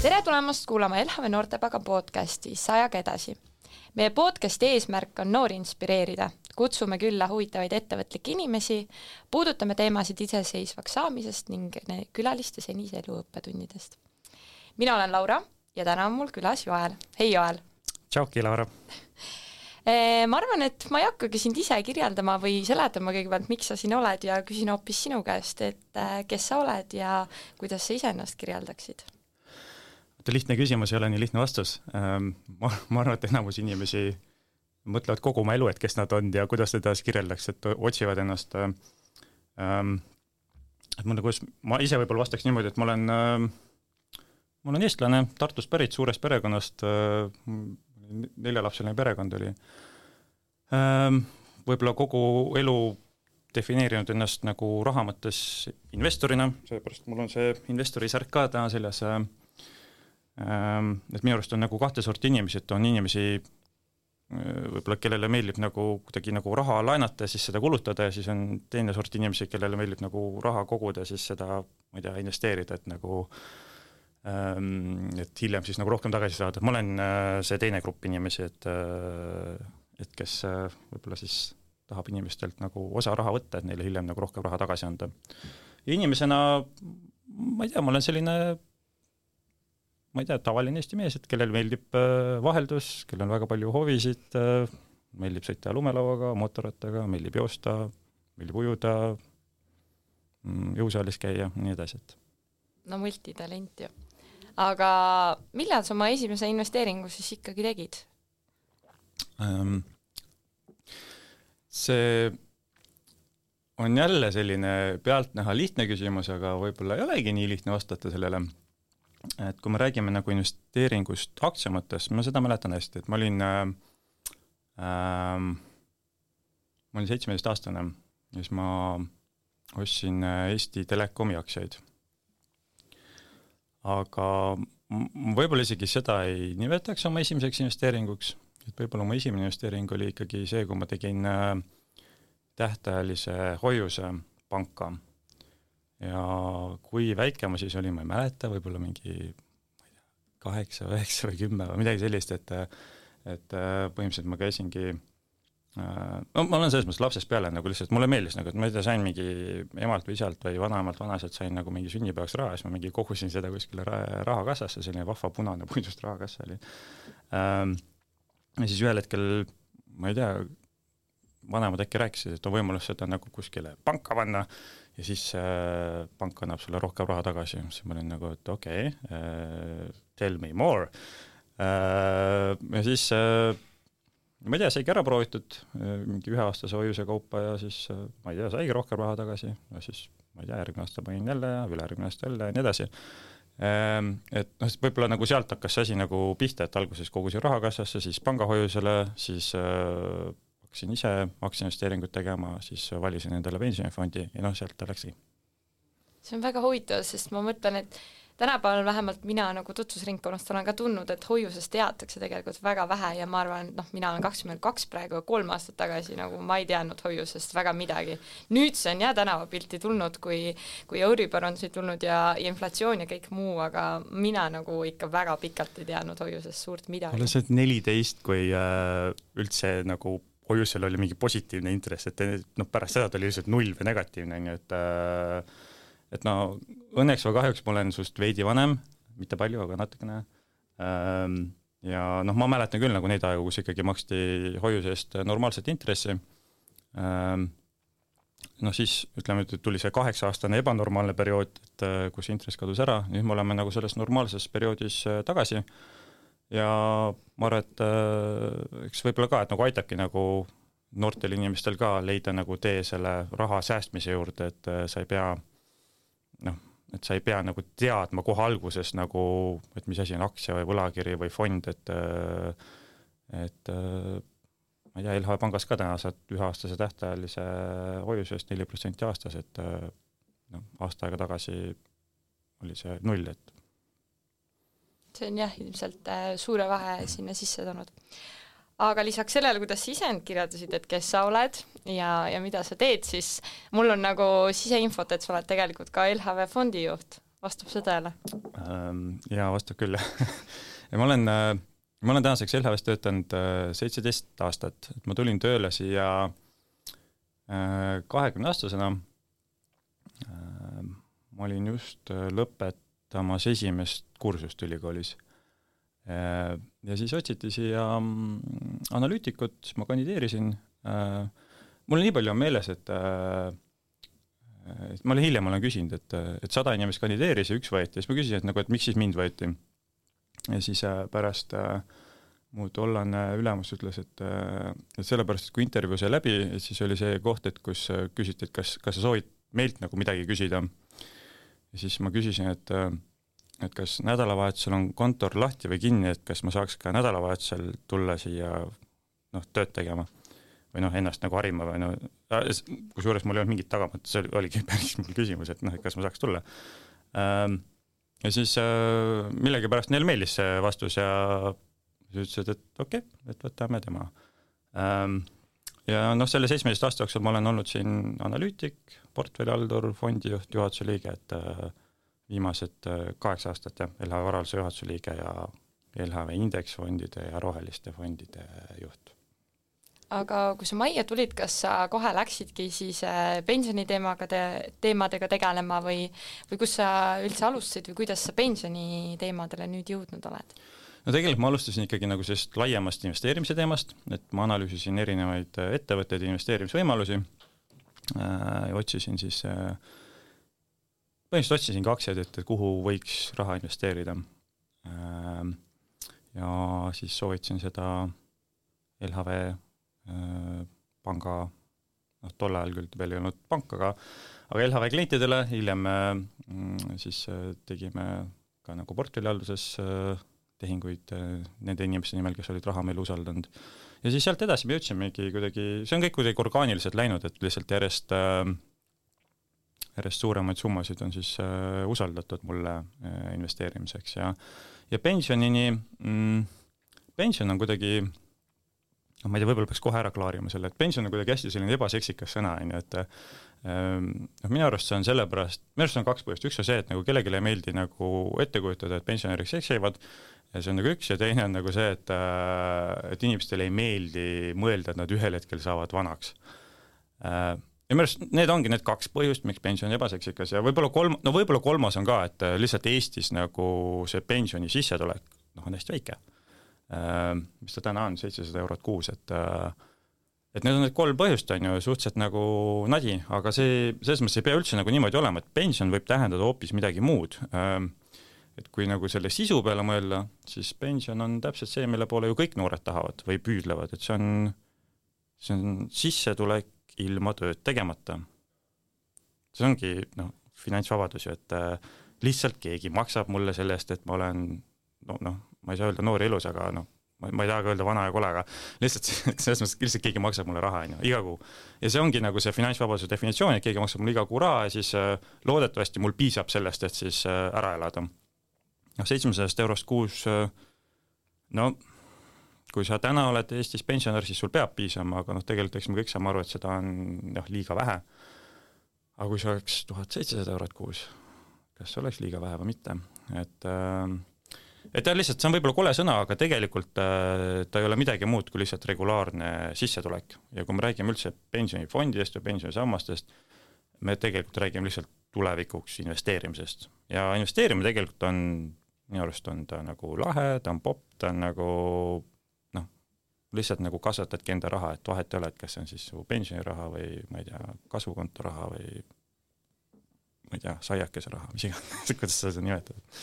Tere tulemast kuulama LHV Noortepaga podcasti Sajaga edasi. Meie podcasti eesmärk on noori inspireerida. Kutsume külla huvitavaid ettevõtlikke inimesi, puudutame teemasid iseseisvaks saamisest ning külaliste senise elu õppetundidest. Mina olen Laura ja täna on mul külas Joel. Hei Joel! Tšauki, Laura! Ma arvan, et ma ei hakkagi sind ise kirjeldama või seletama kõigepealt, miks sa siin oled ja küsin hoopis sinu käest, et kes sa oled ja kuidas sa iseennast kirjeldaksid? Lihtne küsimus ei ole nii lihtne vastus. Ma arvan, et enamus inimesi mõtlevad kogu oma elu, et kes nad on ja kuidas seda kirjeldaks, et otsivad ennast. Ma ise võib-olla vastaks niimoodi, et ma olen eestlane, Tartust pärit, suurest perekonnast, 4-lapseline perekond oli. Võib-olla kogu elu defineerinud ennast nagu raha mõttes investorina, seepärast mul on see investori särk ka täna seljas. Et minu arust on nagu kahte sorti inimesi, et on inimesi, võib-olla kellele meeldib nagu kuidagi nagu raha laenata ja siis seda kulutada ja siis on teine sort inimesi, kellele meeldib nagu raha koguda ja siis seda, ma ei tea, investeerida, et nagu et hiljem siis nagu rohkem tagasi saada. Ma olen see teine grupp inimesi, et kes võib-olla siis tahab inimestelt nagu osa raha võtta, et neile hiljem nagu rohkem raha tagasi anda. Ja inimesena, ma ei tea, ma olen selline tavaline Eesti mees, et kellel meeldib vaheldus, kellel on väga palju hovisid, meeldib sõita lumelauaga, mootorrattaga, meeldib joosta, meeldib ujuda, jõusaalis käia, nii edasi. No multitalent ju. Aga millal sa oma esimese investeeringu siis ikkagi tegid? See on jälle selline pealtnäha lihtne küsimus, aga võib-olla ei olegi nii lihtne vastata sellele. Et kui me räägime nagu investeeringust aktsia mõttes, ma seda mäletan hästi, et ma olin 17-aastane ja siis ma ostsin Eesti Telekomi aktsiaid. Aga võib-olla isegi seda ei nimetaks oma esimeseks investeeringuks, et võib-olla oma esimene investeering oli ikkagi see, kui ma tegin tähtajalise hoiuse panka. Ja kui väike ma siis olin, ma ei mäleta, võib-olla mingi 8, 9 või 10 või midagi sellist, et põhimõtteliselt ma käisingi, ma olen selles mõttes lapsest peale nagu lihtsalt, mulle meeldis nagu, et ma sain mingi emalt või isalt või vanaemalt vanaselt sain nagu mingi sünnipäevaks raha, siis ma mingi kogusin seda kuskile rahakassasse, selline vahva punane puidust rahakassa oli. Ja siis ühel hetkel, ma ei tea, vanemad äkki rääkisid, et on võimalus seda nagu kuskile panka panna ja siis pank annab sulle rohkem raha tagasi. Siis ma olin nagu, et okei, tell me more. Ja siis, ma ei tea, saigi ära proovitud mingi 1-aastase hoiuse kaupa ja siis, ma ei tea, saigi rohkem raha tagasi ja siis, ma ei tea, järgmine aasta panin jälle ja ülejärgmine aasta jälle ja nii edasi. Et võib-olla nagu sealt hakkas see asi nagu pihta, et alguses kogusin rahakassasse, siis pangahoiusele, siis hakkasin ise aktsiainvesteeringut tegema, siis valisin endale pensionifondi ja sealt ta läkski. See on väga huvitav, sest ma mõtlen, et tänapäeval vähemalt mina nagu tutvusringkonnast olen ka tundnud, et hoiusest teatakse tegelikult väga vähe ja ma arvan, et mina olen 22 praegu 3 aastat tagasi, nagu ma ei teadnud hoiusest väga midagi. Nüüd see on tänavapilti tulnud, kui Euribor on siit tulnud ja inflatsioon ja kõik muu, aga mina nagu ikka väga pikalt ei teadnud hoiusest suurt midagi. Olen see 14, kui üldse nagu hoiusel oli mingi positiivne intress, et pärast seda oli lihtsalt 0 või negatiivne, et õnneks või kahjuks ma olen sust veidi vanem, mitte palju, aga natukene. Ja ma mäletan küll nagu neid aegu, kus ikkagi maksti hoiuse eest normaalset intressi. Siis ütleme, et tuli see 8-aastane ebanormaalne periood, et kus intress kadus ära, nüüd me oleme nagu selles normaalses perioodis tagasi. Ja ma arvan, et eks võib-olla ka, et nagu aitabki nagu noortel inimestel ka leida nagu tee selle raha säästmise juurde, et sa ei pea nagu teadma kohe alguses nagu, et mis asi on aktsia või võlakiri või fond, et ma ei tea, LHV pangas ka täna saad 1-aastase tähtajalise hoiuse eest 4% aastas, et aasta aega tagasi oli see 0, et see on ilmselt suure vahe sinna sisse toonud. Aga lisaks sellele, kuidas sa ise end kirjeldasid, et kes sa oled ja mida sa teed, siis mul on nagu siseinfot, et sa oled tegelikult ka LHV fondi juht. vastab see tõele? Jaa, vastab küll. Ja ma olen tänaseks LHV-s töötanud 17 aastat, et ma tulin tööle siia 20-aastasena. Ma olin just lõpetamas esimest kursust ülikoolis. Ja siis otsiti siia analüütikut, ma kandideerisin. Mul nii palju on meeles, et ma hiljem olen küsinud, et 100 inimest kandideeris ja üks võeti. Siis ma küsisin, et miks siis mind võeti. Ja siis pärast mu tollane ülemus ütles, et sellepärast, et kui intervjuu sai läbi, siis oli see koht, et kus küsiti, et kas sa soovid meilt nagu midagi küsida. Ja siis ma küsisin, et kas nädalavahetusel on kontor lahti või kinni, et kas ma saaks ka nädalavahetusel tulla siia tööd tegema või ennast nagu harima või kusjuures mul ei olnud mingit tagamat, see oligi päris mul küsimus, et kas ma saaks tulla. Ja siis millegipärast neil meeldis see vastus ja siis ütlesid, et okei, et võtame tema. Ja selle 17 aasta jooksul ma olen olnud siin analüütik, portfellihaldur, fondijuht, juhatuse liige, et viimased 8 aastat ja LHV varalise juhatuse liige ja LHV indeksfondide ja roheliste fondide juht. Aga kui sa majja tulid, kas sa kohe läksidki siis pensioniteemadega tegelema või kus sa üldse alustasid või kuidas sa pensioniteemadele nüüd jõudnud oled? No tegelikult ma alustasin ikkagi nagu sellist laiemast investeerimise teemast, et ma analüüsisin erinevaid ettevõtteid ja investeerimisvõimalusi. Otsisin siis põhimõtteliselt otsisin aktsiaid, et kuhu võiks raha investeerida. Ja siis soovitasin seda LHV panga, tol ajal küll veel ei olnud pank, aga LHV klientidele hiljem siis tegime ka nagu portfellihalduses tehinguid nende inimeste nimel, kes olid raha meil usaldanud. Ja siis sealt edasi me jõudsimegi kuidagi, see on kõik kuidagi orgaaniliselt läinud, et lihtsalt järjest suuremaid summasid on siis usaldatud mulle investeerimiseks ja pensionini, pension on kuidagi, ma ei tea, võib-olla peaks kohe ära klaarima selle, et pension on kuidagi hästi selline ebaseksikas sõna, et minu arust see on sellepärast, minu arust on 2 põhjust, üks on see, et nagu kellelegi ei meeldi nagu ette kujutada, et pensionäriks seksivad, ja see on nagu üks ja teine on nagu see, et inimestele ei meeldi mõelda, et nad ühel hetkel saavad vanaks. Ja minu arust need ongi need 2 põhjust, miks pension on ebaseksikas ja võib-olla kolmas on ka, et lihtsalt Eestis nagu see pensioni sissetulek on hästi väike. Mis ta täna on, 700 eurot kuus, et need on need 3 põhjust on ju suhteliselt nagu nadi, aga selles mõttes ei pea üldse nagu niimoodi olema, et pension võib tähendada hoopis midagi muud. Et kui nagu selle sisu peale mõelda, siis pension on täpselt see, mille poole ju kõik noored tahavad või püüdlevad, et see on sissetulek ilma tööd tegemata. See ongi finantsvabadus ju, et lihtsalt keegi maksab mulle selle eest, et ma olen ma ei saa öelda noor ilus, aga ma ei taha öelda vana ja kole, aga lihtsalt selles mõttes lihtsalt keegi maksab mulle raha iga kuu. Ja see ongi nagu see finantsvabaduse definitsioon, et keegi maksab mulle iga kuu raha ja siis loodetavasti mul piisab sellest, et siis ära elada. 700 eurost kuus, kui sa täna oled Eestis pensionär, siis sul peab piisama, aga tegelikult eks me kõik saame aru, et seda on liiga vähe. Aga kui see oleks 1700 eurot kuus, kas see oleks liiga vähe või mitte? Et lihtsalt, see on võib-olla kole sõna, aga tegelikult ta ei ole midagi muud kui lihtsalt regulaarne sissetulek. Ja kui me räägime üldse pensionifondidest või pensionisammastest, me tegelikult räägime lihtsalt tulevikuks investeerimisest. Ja investeerimine tegelikult on, minu arust on ta nagu lahe, ta on popp, ta on nagu lihtsalt nagu kasvatadki enda raha, et vahet ei ole, et kas see on siis su pensioniraha või ma ei tea, kasvukonto raha või ma ei tea, saiakese raha, mis iganes, kuidas sa seda nimetad.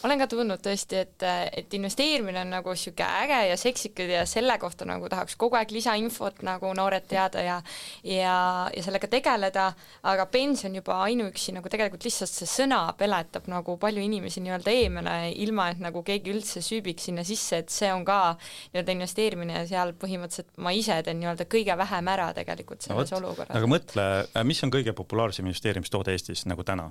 Olen ka tundnud tõesti, et investeerimine on nagu siuke äge ja seksikad ja selle kohta nagu tahaks kogu aeg lisainfot nagu noored teada ja sellega tegeleda, aga pension juba ainuüksi nagu tegelikult lihtsalt see sõna peletab nagu palju inimesi nii-öelda eemale, ilma et nagu keegi üldse süübiks sinna sisse, et see on ka nii-öelda investeerimine ja seal põhimõtteliselt ma ise teen nii-öelda kõige vähem ära tegelikult selles olukorras. Aga mõtle, mis on kõige populaarsem investeerimistoode Eestis nagu täna?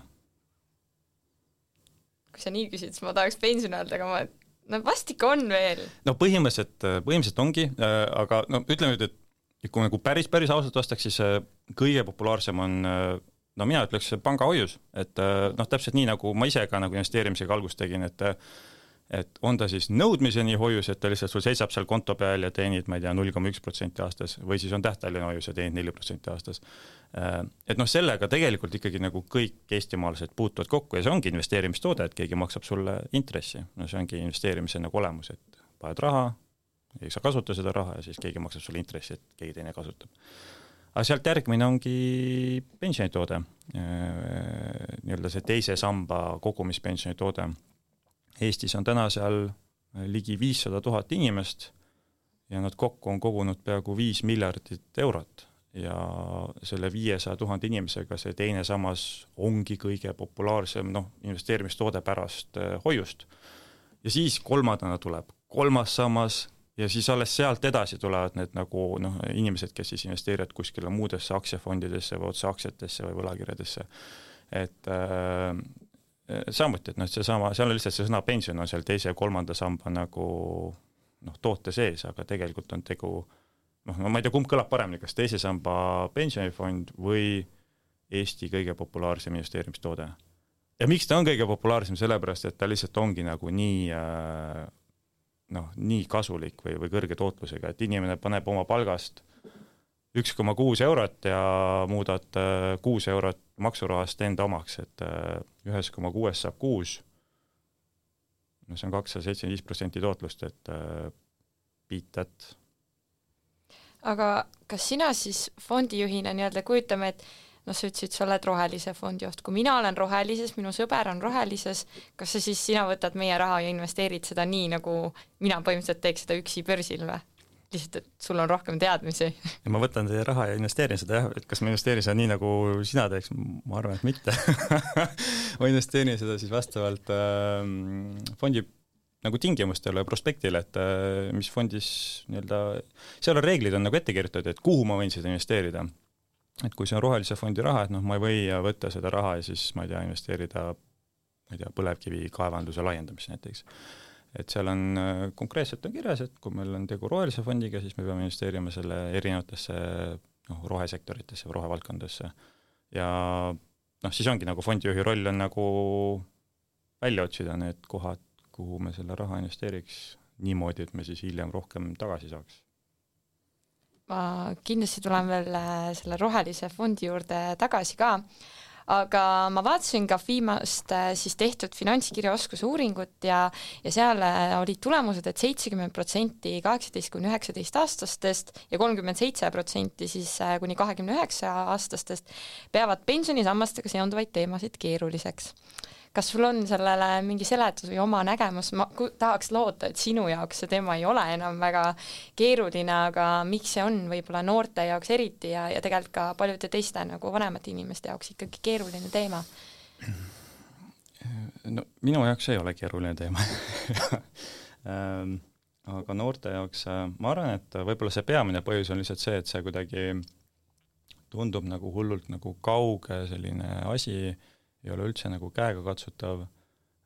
Kui sa nii küsid, siis ma tahaks pensioni öelda, aga vastik on veel. Põhimõtteliselt ongi, aga ütleme nüüd, et kui nagu päris ausalt vastaks, siis kõige populaarsem on no mina ütleks pangahoius, et noh, täpselt nii, nagu ma ise ka nagu investeerimisega algust tegin, et on ta siis nõudmiseni hoius, et ta lihtsalt sul seisab seal konto peal ja teenid, ma ei tea, 0,1% aastas, või siis on tähtajaline hoius ja teenid 4% aastas. Et noh, sellega tegelikult ikkagi nagu kõik eestimaalased puutuvad kokku ja see ongi investeerimistoode, et keegi maksab sulle intressi. No see ongi investeerimise nagu olemus, et paned raha, ei saa kasuta seda raha ja siis keegi maksab sulle intressi, et keegi teine kasutab. Aga sealt järgmine ongi pensionitoode, nii-öelda see teise samba kogumispensionitoode. Eestis on täna seal ligi 500 000 inimest ja nad kokku on kogunud peaaegu 5 miljardit eurot ja selle 500 000 inimesega see teine sammas ongi kõige populaarsem investeerimistoode pärast hoiust. Ja siis kolmandana tuleb kolmas sammas ja siis alles sealt edasi tulevad need nagu inimesed, kes siis investeerivad kuskile muudesse aktsiafondidesse või otse aktsiatesse või võlakirjadesse. Et samuti, et seesama, seal on lihtsalt see sõna pension on seal teise ja kolmanda samba nagu toote sees, aga tegelikult on tegu, ma ei tea, kumb kõlab paremini, kas teise samba pensionifond või Eesti kõige populaarsem investeerimistoode. Ja miks ta on kõige populaarsem, sellepärast, et ta lihtsalt ongi nagu nii kasulik või kõrge tootlusega, et inimene paneb oma palgast 1,6 eurot ja muudad 6 eurot maksurahast enda omaks, et 1,6 saab 6. See on 275% tootlust, et beat that. Aga kas sina siis fondijuhina nii-öelda kujutame, et sa ütlesid, sa oled rohelise fondi oht. Kui mina olen rohelises, minu sõber on rohelises, kas sa siis sina võtad meie raha ja investeerid seda nii, nagu mina põhimõtteliselt teeks seda üksi börsil või? Lihtsalt, et sul on rohkem teadmisi. Ja ma võtan teie raha ja investeerin seda, et kas ma investeerin seda nii, nagu sina teeks, ma arvan, et mitte. Ma investeerin seda siis vastavalt fondi nagu tingimustele ja prospektile, et mis fondis nii-öelda, seal on reeglid on nagu ette kirjutatud, et kuhu ma võin seda investeerida. Et kui see on rohelise fondi raha, et ma ei või võtta seda raha ja siis, ma ei tea, investeerida põlevkivi kaevanduse laiendamisse näiteks. Et seal on konkreetselt on kirjas, et kui meil on tegu rohelise fondiga, siis me peame investeerima selle erinevatesse rohesektoritesse või rohevaldkondadesse. Ja siis ongi nagu fondijuhi roll on nagu välja otsida need kohad, kuhu me selle raha investeeriks niimoodi, et me siis hiljem rohkem tagasi saaks. Ma kindlasti tulen veel selle rohelise fondi juurde tagasi ka, aga ma vaatasin ka viimast siis tehtud finantskirjaoskuse uuringut ja seal olid tulemused, et 70% 18–19 aastastest ja 37% siis kuni 29 aastastest peavad pensionisammastega seonduvaid teemasid keeruliseks. Kas sul on sellele mingi seletus või oma nägemus? Ma tahaks loota, et sinu jaoks see teema ei ole enam väga keeruline, aga miks see on võib-olla noorte jaoks eriti ja tegelikult ka paljude teiste nagu vanemate inimeste jaoks ikkagi keeruline teema? No, minu jaoks ei ole keeruline teema. Aga noorte jaoks ma arvan, et võib-olla see peamine põhjus on lihtsalt see, et see kuidagi tundub nagu hullult nagu kauge selline asi, ei ole üldse nagu käega katsutav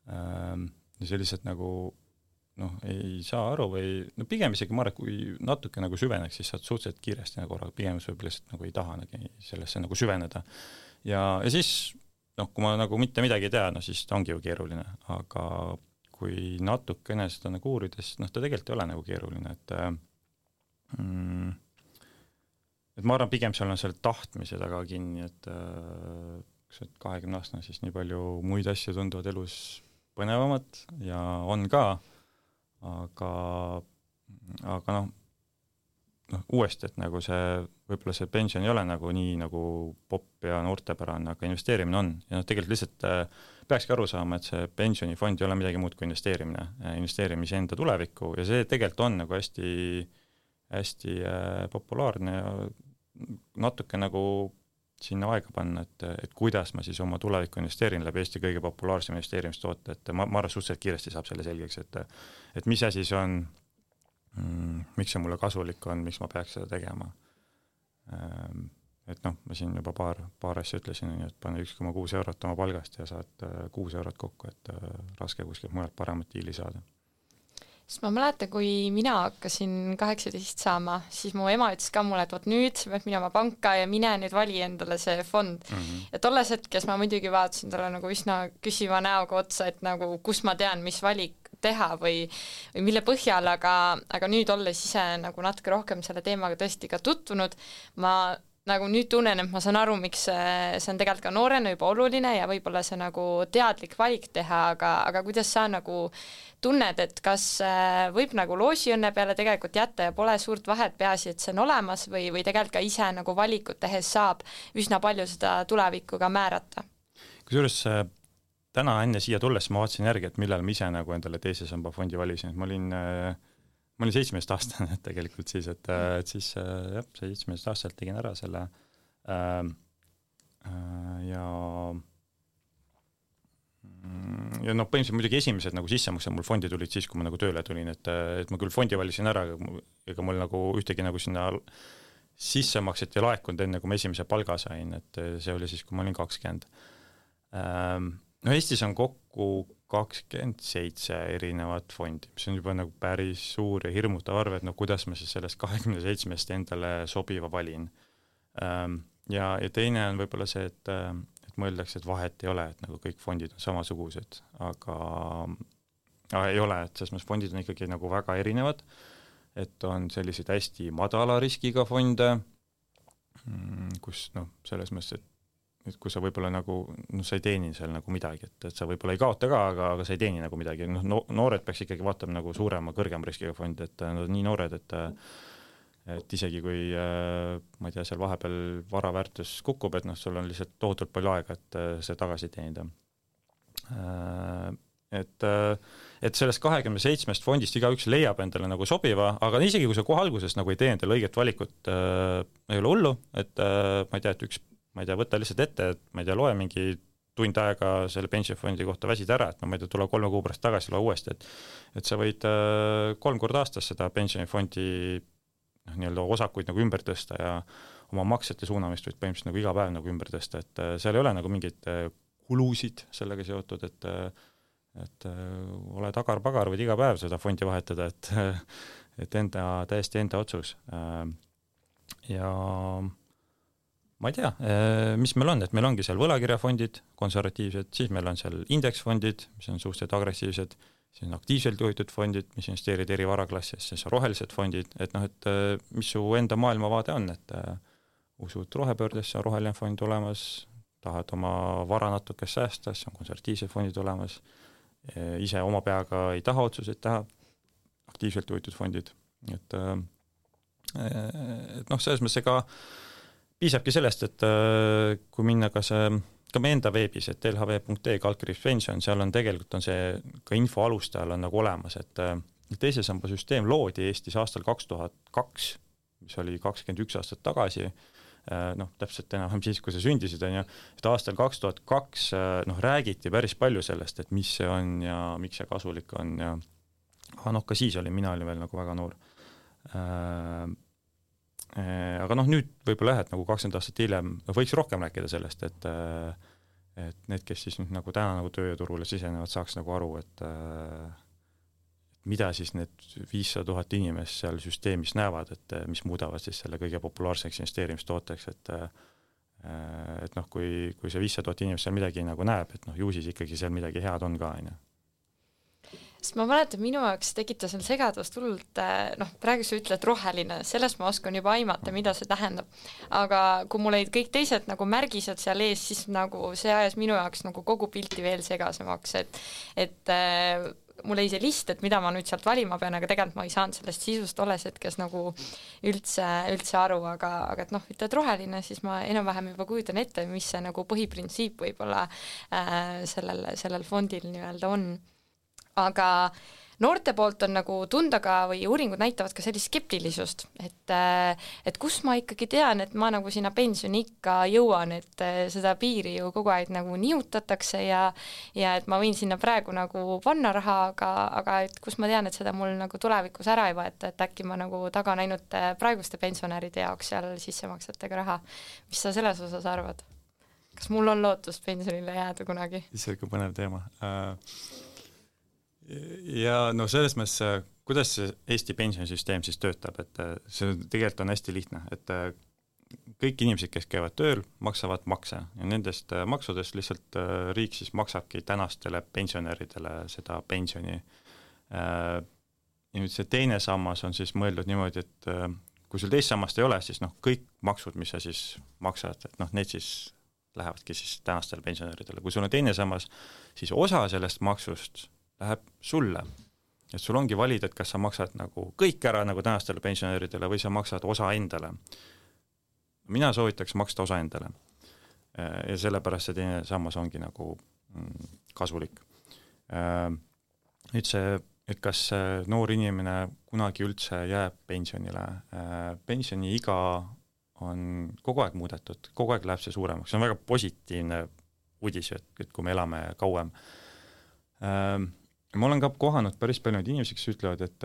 ja see lihtsalt nagu ei saa aru või pigem isegi ma arvan, kui natuke nagu süveneks, siis saad suhteliselt kiiresti nagu aru, pigem võib-olla lihtsalt nagu ei taha sellesse nagu süveneda ja siis kui ma nagu mitte midagi ei tea, siis ta ongi ju keeruline, aga kui natukene seda nagu uurides, ta tegelikult ei ole nagu keeruline, et ma arvan, pigem seal on seal tahtmise taga kinni, et 20-aastane siis nii palju muid asju tunduvad elus põnevamat ja on ka, aga uuesti, et nagu see, võib-olla see pension ei ole nagu nii nagu popp ja noortepärane, aga investeerimine on. Ja tegelikult lihtsalt peakski aru saama, et see pensionifond ei ole midagi muud kui investeerimise enda tulevikku ja see tegelikult on nagu hästi populaarne ja natuke nagu sinna aega panna, et kuidas ma siis oma tulevikku investeerin läbi Eesti kõige populaarsem investeerimistoote, et ma arvan, suhteliselt kiiresti saab selle selgeks, et mis asi see on, miks see mulle kasulik on, miks ma peaks seda tegema. Et ma siin juba paar asja ütlesin, et pane 1,6 eurot oma palgast ja saad 6 eurot kokku, et raske kuskilt mujalt paremat diili saada. Sest ma mäletan, kui mina hakkasin 18 saama, siis mu ema ütles ka mulle, et vot nüüd sa pead minema panka ja mine nüüd vali endale see fond. Ja tolles hetkes ma muidugi vaatasin talle nagu üsna küsiva näoga otsa, et nagu kus ma tean, mis valik teha või mille põhjal, aga nüüd olles ise nagu natuke rohkem selle teemaga tõesti ka tutvunud, ma nagu nüüd tunnen, et ma saan aru, miks see on tegelikult ka noorena juba oluline ja võib-olla see nagu teadlik valik teha, aga kuidas sa nagu tunned, et kas võib nagu loosiõnne peale tegelikult jätta ja pole suurt vahet, peaasi, et see on olemas või tegelikult ka ise nagu valikut tehes saab üsna palju seda tulevikku ka määrata? Kusjuures täna enne siia tulles ma vaatasin järgi, et millal ma ise nagu endale teise samba fondi valisin, et ma olin 17-aastane tegelikult siis, et siis jah, 17-aastaselt tegin ära selle ja noh, põhimõtteliselt muidugi esimesed nagu sissemaksed mul fondi tulid siis, kui ma nagu tööle tulin, et ma küll fondi valisin ära, ega mul nagu ühtegi nagu sinna sissemakset ei laekunud enne, kui ma esimese palga sain, et see oli siis, kui ma olin 20. No Eestis on kokku 27 erinevat fondi, mis on juba nagu päris suur ja hirmutav arv, et no kuidas ma siis sellest 27-st endale sobiva valin. Ja teine on võib-olla see, et mõeldakse, et vahet ei ole, et nagu kõik fondid on samasugused, aga ei ole, et selles mõttes fondid on ikkagi nagu väga erinevad, et on selliseid hästi madala riskiga fonde, kus noh, selles mõttes, et kui sa võib-olla nagu, sa ei teeni seal nagu midagi, et sa võib-olla ei kaota ka, aga sa ei teeni nagu midagi, noored peaks ikkagi vaatama nagu suurema, kõrgema riskiga fondi, et nad on nii noored, et isegi kui, ma ei tea, seal vahepeal varaväärtus kukub, et sul on lihtsalt tohutult palju aega, et see tagasi teenida. Et sellest 27 fondist igaüks leiab endale nagu sobiva, aga isegi kui sa kohe alguses nagu ei tee endale õiget valikut, ei ole hullu, et ma ei tea, et võta lihtsalt ette, et ma ei tea, loe mingi tund aega selle pensionifondi kohta väsid ära, et ma ei tea, tule 3 kuu pärast tagasi, loe uuesti, et sa võid 3 korda aastas seda pensionifondi nii-öelda osakuid nagu ümber tõsta ja oma maksete suunamist võid põhimõtteliselt nagu iga päev nagu ümber tõsta, et seal ei ole nagu mingeid kulusid sellega seotud, et ole tagar-pagar, võid iga päev seda fondi vahetada, et täiesti enda otsus. Ja ma ei tea, mis meil on, et meil ongi seal võlakirjafondid, konservatiivsed, siis meil on seal indeksfondid, mis on suhteliselt agressiivsed, siis on aktiivselt juhitud fondid, mis investeerid eri varaklassis, siis on rohelised fondid, et noh, et mis su enda maailmavaade on, et usud rohepöördesse, on roheline fond olemas, tahad oma vara natuke säästa, siis on konservatiivsed fondid olemas, ise oma peaga ei taha otsuseid teha, aktiivselt juhitud fondid, et noh, selles mõttes ega piisabki sellest, et kui minna ka meie enda veebis, et lhv.ee/pension, seal on tegelikult on see ka info alustajal on nagu olemas, et teise samba süsteem loodi Eestis aastal 2002, mis oli 21 aastat tagasi, noh, täpselt enam siis, kui sa sündisid, on ju, et aastal 2002 noh, räägiti päris palju sellest, et mis see on ja miks see kasulik on ja noh, ka siis mina olin veel nagu väga noor. Aga noh, nüüd võib-olla et nagu 20 aastat hiljem võiks rohkem rääkida sellest, et need, kes siis nüüd nagu täna nagu tööturule sisenevad, saaks nagu aru, et mida siis need 500 000 inimest seal süsteemis näevad, et mis muudavad siis selle kõige populaarseks investeerimistooteks, et noh, kui see 500 000 inimest seal midagi nagu näeb, et noh, ju siis ikkagi seal midagi head on ka, on ju. Sest ma mäletan, minu jaoks tekitas seal segadust hullult, noh, praegu sa ütled roheline, sellest ma oskan juba aimata, mida see tähendab. Aga kui mul olid kõik teised nagu märgised seal ees, siis nagu see ajas minu jaoks nagu kogu pilti veel segasemaks, et mul oli see list, et mida ma nüüd sealt valima pean, aga tegelikult ma ei saanud sellest sisust olles hetkes nagu üldse aru, aga et noh, ütled roheline, siis ma enam-vähem juba kujutan ette, mis see nagu põhiprintsiip võib-olla sellel fondil nii-öelda on. Aga noorte poolt on nagu tunda ka või uuringud näitavad ka sellist skeptilisust, et kus ma ikkagi tean, et ma nagu sinna pensioni ikka jõuan, et seda piiri ju kogu aeg nagu nihutatakse ja et ma võin sinna praegu nagu panna raha, aga et kus ma tean, et seda mul nagu tulevikus ära ei võeta, et äkki ma nagu tagan ainult praeguste pensionäride jaoks seal sissemaksetega raha. Mis sa selles osas arvad? Kas mul on lootust pensionile jääda kunagi? See on põnev teema. Ja no selles mõttes, kuidas see Eesti pensionisüsteem siis töötab, et see tegelikult on hästi lihtne, et kõik inimesed, kes käivad tööl, maksavad makse ja nendest maksudest lihtsalt riik siis maksabki tänastele pensionäridele seda pensioni. Ja nüüd see teine sammas on siis mõeldud niimoodi, et kui sul teist sammast ei ole, siis kõik maksud, mis sa siis maksad, et need siis lähevadki siis tänastele pensionäridele. Kui sul on teine sammas, siis osa sellest maksust läheb sulle. Et sul ongi valida, et kas sa maksad nagu kõik ära nagu tänastele pensionäridele või sa maksad osa endale. Mina soovitaks maksta osa endale. Ja sellepärast see teine sammas ongi nagu kasulik. Nüüd see, et kas noor inimene kunagi üldse jääb pensionile. Pensioni iga on kogu aeg muudetud, kogu aeg läheb see suuremaks. See on väga positiivne uudis, et kui me elame kauem. Ma olen ka kohanud päris palju inimesi, kes ütlevad, et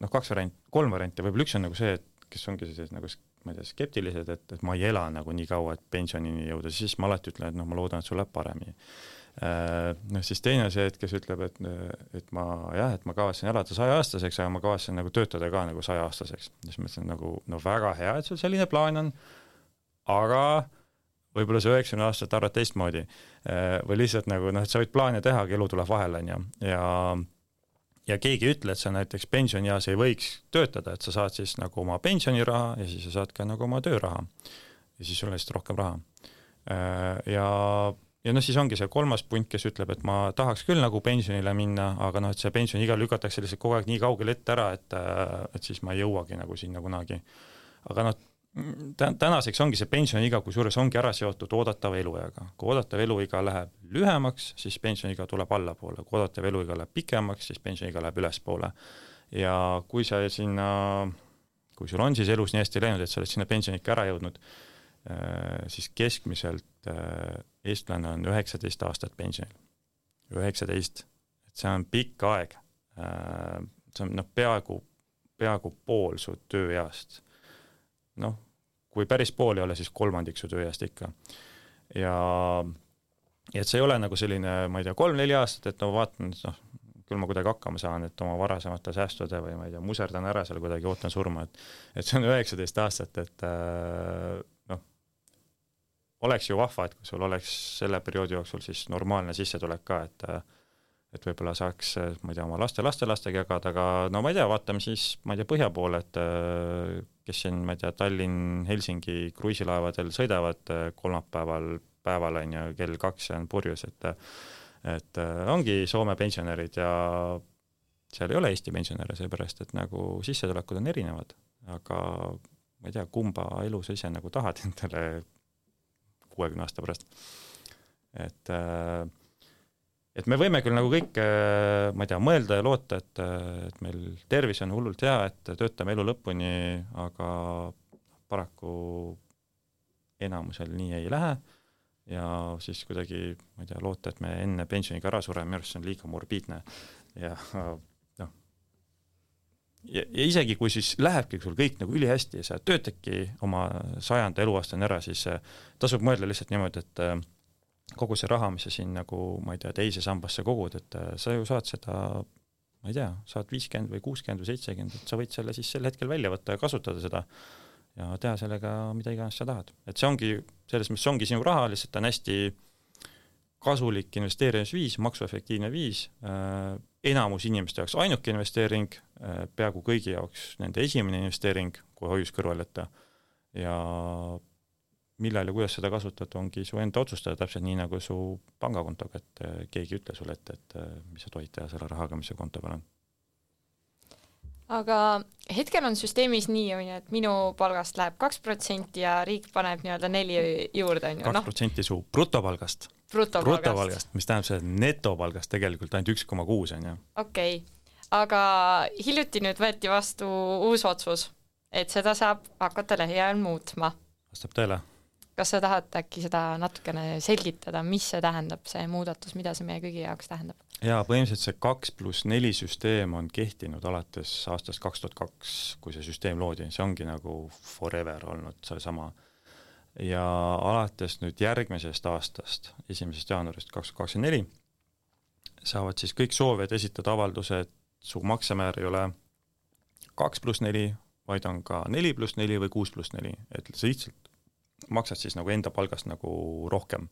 3 varianti, võib-olla üks on nagu see, et kes ongi sellised nagu, ma ei tea, skeptilised, et ma ei ela nagu nii kaua, et pensionini jõuda, siis ma alati ütlen, et ma loodan, et sul läheb paremini. Siis teine on see, et kes ütleb, et ma kavatsen elada 100-aastaseks, aga ma kavatsen nagu töötada ka nagu 100-aastaseks. Siis ma ütlen nagu, väga hea, et sul selline plaan on, aga võib-olla see 90 aastat arvad teistmoodi või lihtsalt nagu, et sa võid plaane teha, aga elu tuleb vahele ja keegi ütle, et sa näiteks pensionieas ei võiks töötada, et sa saad siis nagu oma pensioniraha ja siis sa saad ka nagu oma tööraha ja siis sul on lihtsalt rohkem raha. Ja siis ongi see 3. punt, kes ütleb, et ma tahaks küll nagu pensionile minna, aga et see pension igal lükatakse lihtsalt kogu aeg nii kaugel ette ära, et siis ma ei jõuagi nagu sinna kunagi. Aga tänaseks ongi see pensioniiga, kui suures ongi ära seotud oodatava eluiga. Kui oodatav eluiga läheb lühemaks, siis pensioniiga tuleb allapoole. Kui oodatav eluiga läheb pikemaks, siis pensioniiga läheb ülespoole. Ja kui sul on siis elus nii hästi läinud, et sa oled sinna pensioniikka ära jõudnud, siis keskmiselt eestlane on 19 aastat pensionil. 19. Et see on pikk aeg. See on peaaegu pool su tööeast. Kui päris pool ei ole, siis 3 su tööeast ikka. Ja et see ei ole nagu selline, ma ei tea, 3-4 aastat, et vaatan, küll ma kuidagi hakkama saan, et oma varasemate säästude või ma ei tea, muserdan ära seal kuidagi, ootan surma, et see on 19 aastat, et oleks ju vahva, et kui sul oleks selle perioodi jooksul siis normaalne sissetulek ka, et võib-olla saaks, ma ei tea, oma lastega jagada, aga ma ei tea, vaatame siis, ma ei tea, põhja poole, et kes siin, ma ei tea, Tallinn-Helsingi kruiisilaevadel sõidavad kolmapäeval on ja kell 2 on purjus, et ongi Soome pensionärid ja seal ei ole Eesti pensionäre, seepärast, et nagu sissetulekud on erinevad, aga ma ei tea, kumba elu sa ise nagu tahad endale 60 aasta pärast. Et me võime küll nagu kõik, ma ei tea, mõelda ja loota, et meil tervis on hullult hea, et töötame elu lõpuni, aga paraku enamusel nii ei lähe ja siis kuidagi, ma ei tea, loota, et me enne pensioniga ära sureme, minu arust on liiga morbiidne ja isegi kui siis lähebki sul kõik nagu ülihästi ja sa töötadki oma 100. eluaastani ära, siis tasub mõelda lihtsalt niimoodi, et kogu see raha, mis sa siin nagu, ma ei tea, teise sambasse kogud, et sa ju saad seda, ma ei tea, saad 50 või 60 või 70, et sa võid selle siis sel hetkel välja võtta ja kasutada seda ja teha sellega mida iganes sa tahad. Et see ongi, selles mõttes ongi sinu raha, lihtsalt on hästi kasulik investeerimisviis, maksuefektiivne viis, enamus inimeste jaoks ainuke investeering, peaaegu kõigi jaoks nende esimene investeering, kui hoius kõrval jätta ja millal ja kuidas seda kasutad, ongi su enda otsustada täpselt nii nagu su pangakontoga, et keegi ütle sulle ette, et mis sa tohid teha selle rahaga, mis su konto peal on. Aga hetkel on süsteemis nii, et minu palgast läheb 2% ja riik paneb 4 juurde. 2% su brutopalgast. Brutopalgast, mis tähendab see netopalgast tegelikult ainult 1,6 on ju. Okei, aga hiljuti nüüd võeti vastu uus otsus, et seda saab hakata lähiajal muutma. Vastab tõele. Kas sa tahad äkki seda natukene selgitada, mis see tähendab, see muudatus, mida see meie kõigi jaoks tähendab? Jaa, põhimõtteliselt see 2+4 süsteem on kehtinud alates aastast 2002, kui see süsteem loodi. See ongi nagu forever olnud see sama. Ja alates nüüd järgmisest aastast, 1. jaanuarist 2024, saavad siis kõik soovijad esitada avaldused su maksemäär ei ole 2+4, vaid on ka 4+4 või 6+4, et sa lihtsalt maksad siis nagu enda palgast nagu rohkem.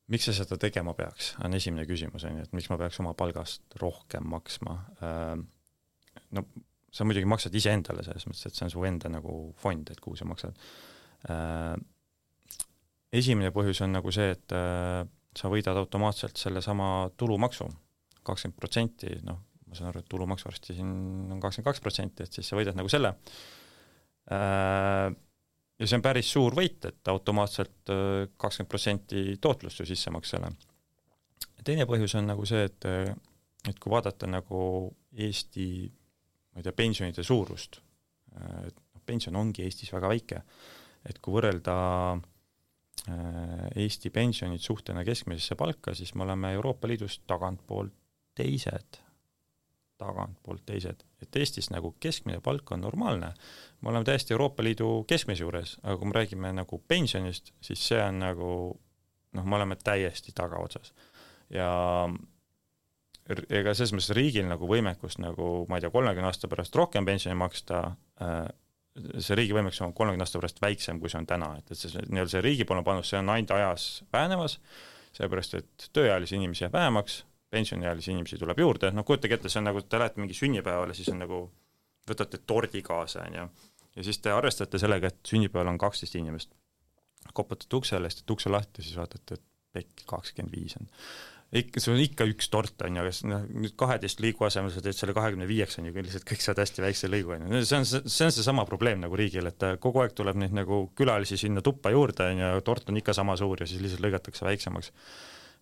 Miks sa seda tegema peaks, on esimene küsimus, et miks ma peaks oma palgast rohkem maksma. No sa muidugi maksad ise endale selles mõttes, et see on su enda nagu fond, et kuhu sa maksad. Esimene põhjus on nagu see, et sa võidad automaatselt selle sama tulumaksu 20%, noh, ma saan aru, et tulumaks varsti siin on 22%, et siis sa võidad nagu selle. Ja see on päris suur võit, et automaatselt 20% tootlust ju sissemaksele. Teine põhjus on nagu see, et kui vaadata nagu Eesti, ma ei tea, pensionide suurust, et pension ongi Eestis väga väike, et kui võrrelda Eesti pensionid suhtena keskmisesse palka, siis me oleme Euroopa Liidus tagantpoolt teised. Et Eestis nagu keskmine palk on normaalne. Me oleme täiesti Euroopa Liidu keskmise juures, aga kui me räägime nagu pensionist, siis see on nagu, noh, me oleme täiesti tagaotsas. Ja ega selles mõttes riigil nagu võimekust nagu, ma ei tea, 30 aasta pärast rohkem pensioni maksta, see riigi võimekus on 30 aasta pärast väiksem, kui see on täna. Et see riigipoolne panus, see on ainult ajas vähenemas, seepärast, et tööealisi inimesi jääb vähemaks, pensioniealisi inimesi tuleb juurde, noh kujutage ette, see on nagu, te lähete mingi sünnipäevale, siis on nagu, võtate tordi kaasa, ja siis te arvestate sellega, et sünnipäeval on 12 inimest. Koputate uksele, siis ukse lahti, siis vaatate, et pekk 25 on. See on ikka üks tort, on ju, aga nüüd 12 liigu asemel sa teed selle 25, on ju, lihtsalt kõik saad hästi väikse lõigu, on ju. See on see sama probleem nagu riigil, et kogu aeg tuleb neid nagu külalisi sinna tuppa juurde, on ju, tort on ikka sama suur ja siis lihtsalt lõigatakse väiksemaks.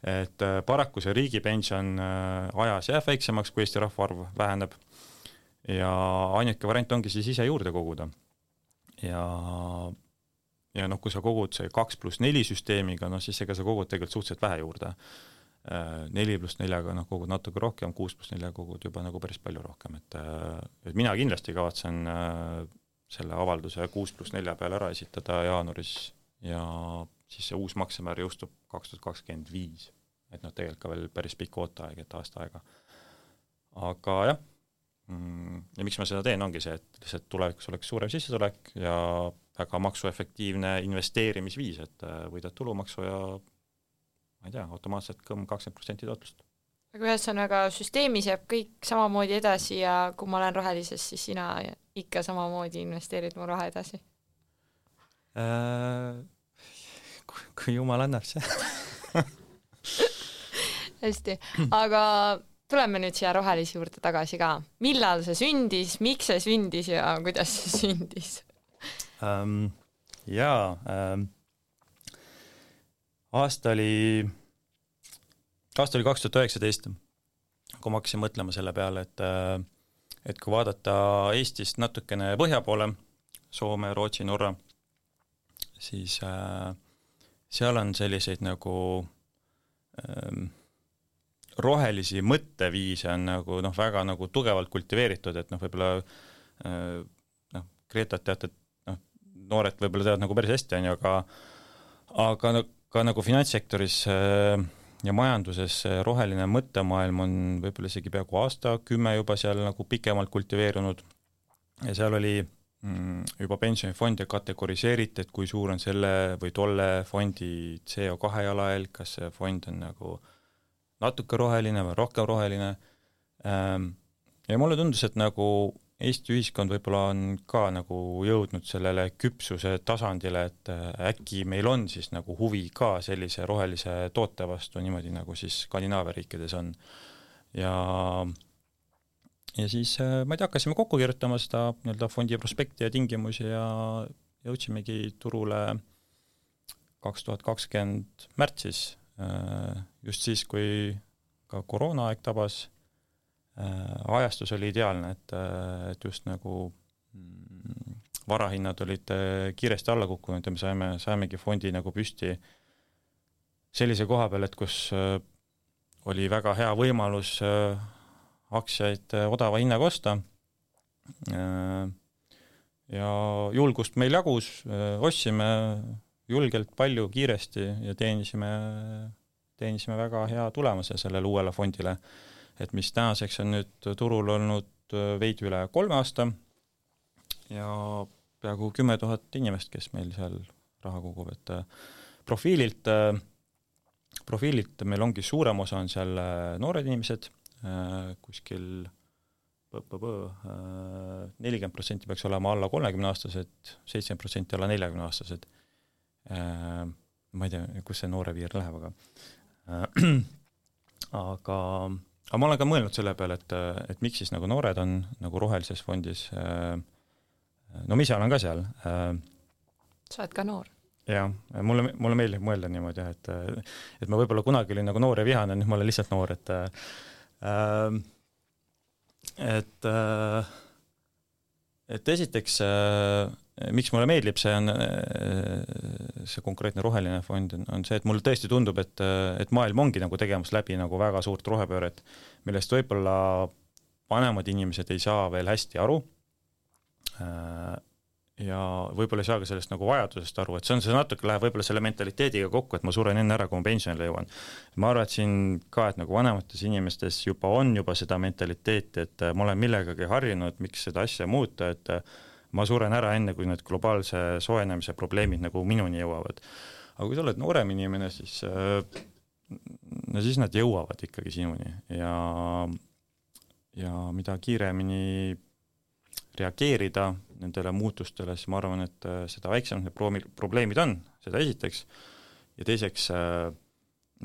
Et paraku see riigipension ajas jääb väiksemaks, kui Eesti rahvaarv väheneb ja ainuke variant ongi siis ise juurde koguda. Ja noh, kui sa kogud see 2+4 süsteemiga, noh siis ega sa kogud tegelikult suhteliselt vähe juurde. 4+4-ga noh, kogud natuke rohkem, 6+4 kogud juba nagu päris palju rohkem. Et mina kindlasti kavatsen selle avalduse 6+4 peale ära esitada jaanuaris ja siis see uus maksemäär jõustub 2025. Et noh, tegelikult ka veel päris pikk ooteaeg, et aasta aega. Aga jah, ja miks ma seda teen, ongi see, et lihtsalt tulevikus oleks suurem sissetulek ja väga maksuefektiivne investeerimisviis, et võidad tulumaksu ja ma ei tea, automaatselt 20% tootlust. Aga ühesõnaga süsteemis jääb kõik samamoodi edasi ja kui ma olen rohelises, siis sina ikka samamoodi investeerid mu raha edasi? Kui jumal annab see. Hästi, aga tuleme nüüd siia rohelisi juurde tagasi ka. Millal see sündis, miks see sündis ja kuidas see sündis? Aasta oli 2019, kui ma hakkasin mõtlema selle peale, et kui vaadata Eestist natukene põhja poole, Soome, Rootsi, Norra, siis seal on selliseid nagu rohelisi mõtteviise on nagu noh, väga nagu tugevalt kultiveeritud, et noh, võib-olla Gretat teate, et noh, noored võib-olla teavad nagu päris hästi, aga ka nagu finantssektoris ja majanduses roheline mõttemaailm on võib-olla isegi peaaegu aasta 10 juba seal nagu pikemalt kultiveerunud ja seal oli juba pensionifonde kategoriseeriti, et kui suur on selle või tolle fondi CO2 jalajälg, kas see fond on nagu natuke roheline või rohkem roheline. Ja mulle tundus, et nagu Eesti ühiskond võib-olla on ka nagu jõudnud sellele küpsuse tasandile, et äkki meil on siis nagu huvi ka sellise rohelise toote vastu niimoodi nagu siis Skandinaavia riikides on. Ja siis ma ei tea, hakkasime kokku kirjutama seda nii-öelda fondi prospekti ja tingimusi ja jõudsimegi turule 2020 märtsis, just siis, kui ka koroonaaeg tabas. Ajastus oli ideaalne, et just nagu varahinnad olid kiiresti alla kukkunud ja me saimegi fondi nagu püsti sellise koha peal, et kus oli väga hea võimalus aktsiaid odava hinnaga osta ja julgust meil jagus, ostsime julgelt palju kiiresti ja teenisime väga hea tulemuse sellele uuele fondile. et mis tänaseks on nüüd turul olnud veidi üle 3 aasta ja peaaegu 10 000 inimest, kes meil seal raha kogub, et profiililt meil ongi suurem osa on seal noored inimesed, kuskil 40% peaks olema alla 30-aastased, 70% alla 40-aastased. Ma ei tea, kus see noore piir läheb, aga ma olen ka mõelnud selle peale, et miks siis nagu noored on nagu rohelises fondis. No ma ise olen ka seal. Sa oled ka noor. Jah, mulle meeldib mõelda niimoodi, et ma võib-olla kunagi olin nagu noor ja vihane, nüüd ma olen lihtsalt noor, et esiteks, miks mulle meeldib, see konkreetne roheline fond on see, et mulle tõesti tundub, et maailm ongi nagu tegemas läbi nagu väga suurt rohepööret, millest võib-olla vanemad inimesed ei saa veel hästi aru ja võib-olla ei saa ka sellest nagu vajadusest aru, et see natuke läheb võib-olla selle mentaliteediga kokku, et ma suren enne ära, kui ma pensionile jõuan. Ma arvan, et siin ka, et nagu vanemates inimestes on juba seda mentaliteeti, et ma olen millegagi harjunud, miks seda asja muuta, et ma suren ära enne, kui need globaalse soojenemise probleemid nagu minuni jõuavad. Aga kui sa oled noorem inimene, siis nad jõuavad ikkagi sinuni ja mida kiiremini reageerida nendele muutustele, siis ma arvan, et seda väiksemad need probleemid on, seda esiteks, ja teiseks,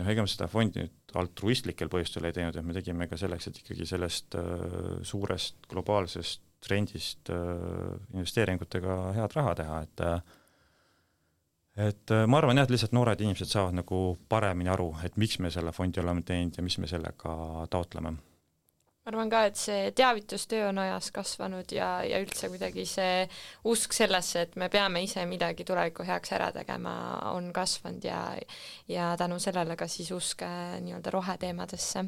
ega me seda fondi nüüd altruistlikel põhjustel ei teinud, et me tegime ka selleks, et ikkagi sellest suurest globaalsest trendist investeeringutega head raha teha, et ma arvan jah, et lihtsalt noored inimesed saavad nagu paremini aru, et miks me selle fondi oleme teinud ja mis me sellega taotleme. Ma arvan ka, et see teavitustöö on ajas kasvanud ja üldse kuidagi see usk sellesse, et me peame ise midagi tuleviku heaks ära tegema, on kasvanud ja tänu sellele ka siis usk nii-öelda roheteemadesse.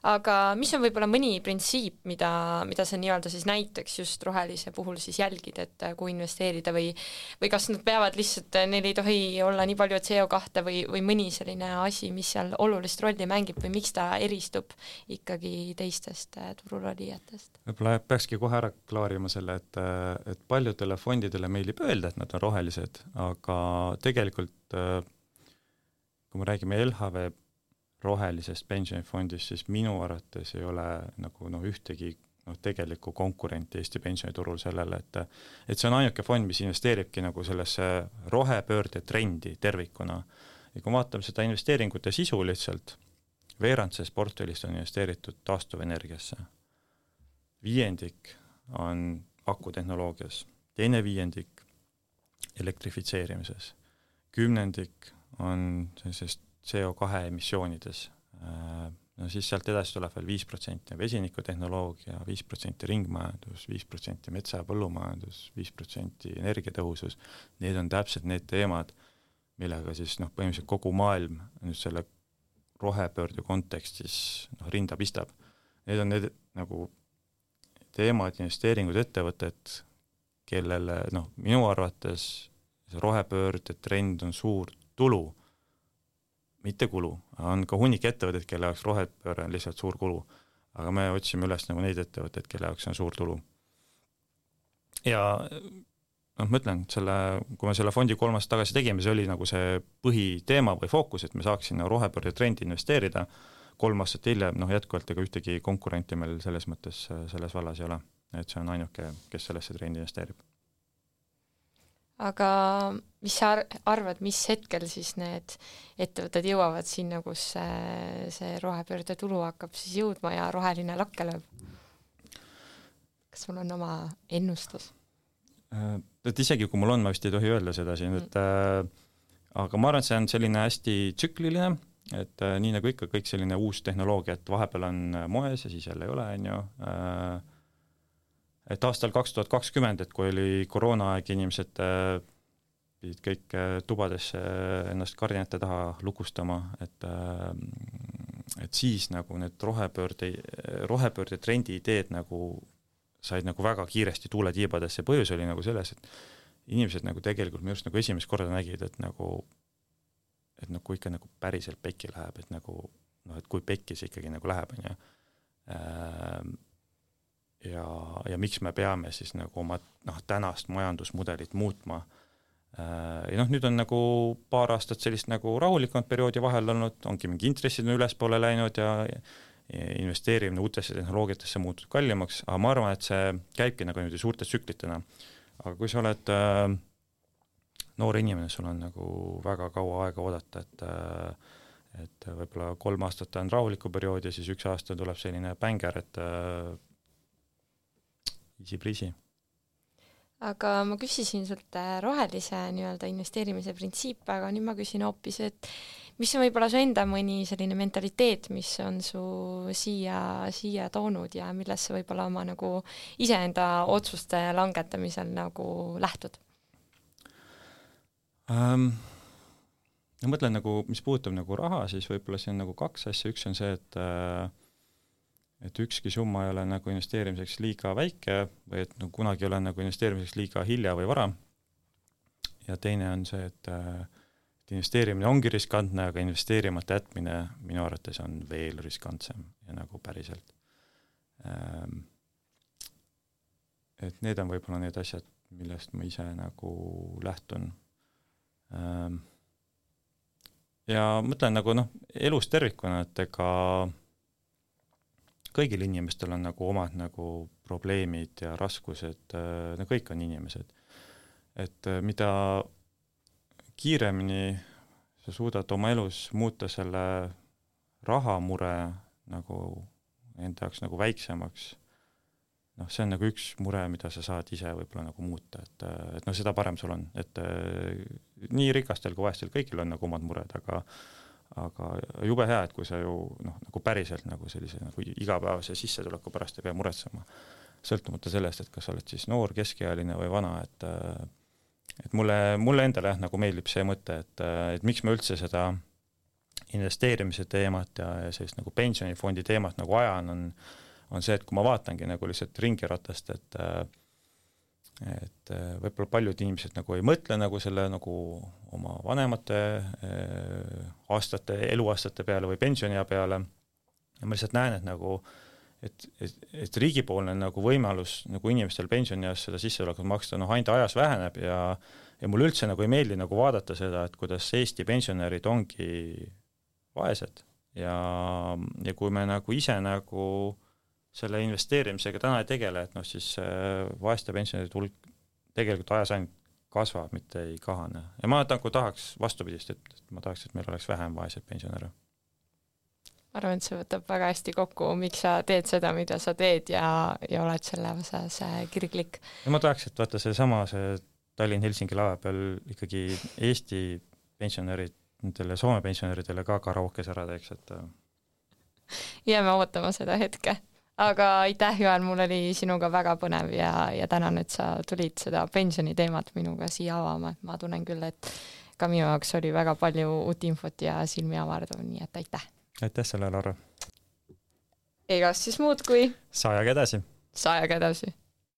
Aga mis on võib-olla mõni printsiip, mida sa nii-öelda siis näiteks just rohelise puhul siis jälgid, et kui investeerida või kas nad peavad lihtsalt, neil ei tohi olla nii palju CO2 või mõni selline asi, mis seal olulist rolli mängib või miks ta eristub ikkagi teistest turulolijatest? Võib-olla peakski kohe ära klaarima selle, et paljudele fondidele meeldib öelda, et nad on rohelised, aga tegelikult kui me räägime LHV rohelisest pensionifondist, siis minu arvates ei ole nagu ühtegi tegelikku konkurenti Eesti pensioniturul sellele, et see on ainuke fond, mis investeeribki nagu sellesse rohepöörde trendi tervikuna. Ja kui vaatame seda investeeringute sisu lihtsalt, veerand sellest portfellist on investeeritud taastuvenergiasse. 5% on akutehnoloogias, 2% elektrifitseerimises, 10% on sellisest CO2 emissioonides. No siis sealt edasi tuleb veel 5% vesinikutehnoloogia, 5% ringmajandus, 5% metsa- ja põllumajandus, 5% energiatõhusus. Need on täpselt need teemad, millega siis põhimõtteliselt kogu maailm nüüd selle rohepöörde kontekstis rinda pistab. Need on need nagu teemad, investeeringud, ettevõtted, kellele minu arvates see rohepöörde trend on suur tulu, mitte kulu, on ka hunnik ettevõtted, kelle jaoks rohepööre on lihtsalt suur kulu, aga me otsime üles nagu neid ettevõtteid, kelle jaoks on suur tulu. Ja ma ütlen, kui me selle fondi 3 aastat tagasi tegime, see oli nagu see põhiteema või fookus, et me saaksime rohepöörde trendi investeerida. 3 aastat hiljem, jätkuvalt ega ühtegi konkurenti meil selles mõttes selles vallas ei ole, et see on ainuke, kes sellesse trendi investeerib. Aga mis sa arvad, mis hetkel siis need ettevõtted jõuavad sinna, kus see rohepöörde tulu hakkab siis jõudma ja roheline lakke lööb? Kas sul on oma ennustus? Et isegi kui mul on, ma vist ei tohi öelda seda siin, aga ma arvan, et see on selline hästi tsükliline, et nii nagu ikka kõik selline uus tehnoloogia, et vahepeal on moes ja siis jälle ei ole, et aastal 2020, et kui oli koroonaaeg, inimesed pidid kõik tubadesse ennast kardinate taha lukustama, et siis nagu need rohepöörde trendi ideed nagu said nagu väga kiiresti tuule tiibadesse. Põhjus oli nagu selles, et inimesed nagu tegelikult me just nagu esimest korda nägid, et kui ikka nagu päriselt pekki läheb, et kui pekki see ikkagi nagu läheb, ja miks me peame siis nagu oma tänast majandusmudelit muutma. Ja nüüd on nagu paar aastat sellist nagu rahulikumat perioodi vahel olnud, ongi mingi intressid on ülespoole läinud ja investeerimine uutesse tehnoloogiatesse muutud kallimaks, aga ma arvan, et see käibki nagu niimoodi suurte tsüklitena. Aga kui sa oled noor inimene, sul on nagu väga kaua aega oodata, et võib-olla 3 aastat on rahuliku periood ja siis 1 aasta tuleb selline bänger, et easy breezy. Aga ma küsisin sult rohelise nii-öelda investeerimise printsiip, aga nüüd ma küsin hoopis, et mis on võib-olla su enda mõni selline mentaliteet, mis on su siia toonud ja millest sa võib-olla oma nagu iseenda otsuste langetamisel nagu lähtud? Ma mõtlen nagu, mis puudutab nagu raha, siis võib-olla see on nagu 2 asja, üks on see, et ükski summa ei ole nagu investeerimiseks liiga väike või et kunagi ei ole nagu investeerimiseks liiga hilja või vara. Ja teine on see, et investeerimine ongi riskantne, aga investeerimata jätmine minu arvates on veel riskantsem ja nagu päriselt. Et need on võib-olla need asjad, millest ma ise nagu lähtun. Ja mõtlen nagu elus tervikuna, et ega kõigil inimestel on nagu omad nagu probleemid ja raskused, kõik on inimesed. Et mida kiiremini sa suudad oma elus muuta selle rahamure nagu enda jaoks nagu väiksemaks, see on nagu üks mure, mida sa saad ise võib-olla nagu muuta, et seda parem sul on, et nii rikastel kui vaestel kõigil on nagu omad mured, aga jube hea, et kui sa ju nagu päriselt nagu sellise nagu igapäevase sissetuleku pärast ei pea muretsema, sõltumata sellest, et kas sa oled siis noor, keskealine või vana, et mulle endale nagu meeldib see mõte, et miks ma üldse seda investeerimise teemat ja sellist nagu pensionifondi teemat nagu ajan, on see, et kui ma vaatangi nagu lihtsalt ringiratast, et võib-olla paljud inimesed nagu ei mõtle nagu selle nagu oma vanemate eluaastate peale või pensioniea peale. Ja ma lihtsalt näen, et nagu et riigipoolne nagu võimalus nagu inimestel pensionieas seda sissetulekut maksta ainult ajas väheneb ja mulle üldse nagu ei meeldi nagu vaadata seda, et kuidas Eesti pensionärid ongi vaesed ja kui me nagu ise nagu selle investeerimisega täna ei tegele, et siis vaeste pensionäride hulk tegelikult ajas ainult kasvab, mitte ei kahane. Ja ma nagu tahaks vastupidist, et ma tahaks, et meil oleks vähem vaeseid pensionäre. Ma arvan, et see võtab väga hästi kokku, miks sa teed seda, mida sa teed ja oled selle osas kirglik. Ja ma tahaks, et vaata see Tallinn-Helsingi laeva peal ikkagi Eesti pensionärid, nendele Soome pensionäridele ka karaokes ära teeks, et jääme ootama seda hetke. Aga aitäh, Joel, mul oli sinuga väga põnev ja tänan, et sa tulid seda pensioniteemat minuga siia avama. Ma tunnen küll, et ka minu jaoks oli väga palju uut infot ja silmi avardav, nii et aitäh. Aitäh selle, Laura. Egas siis muud kui Sajaga edasi.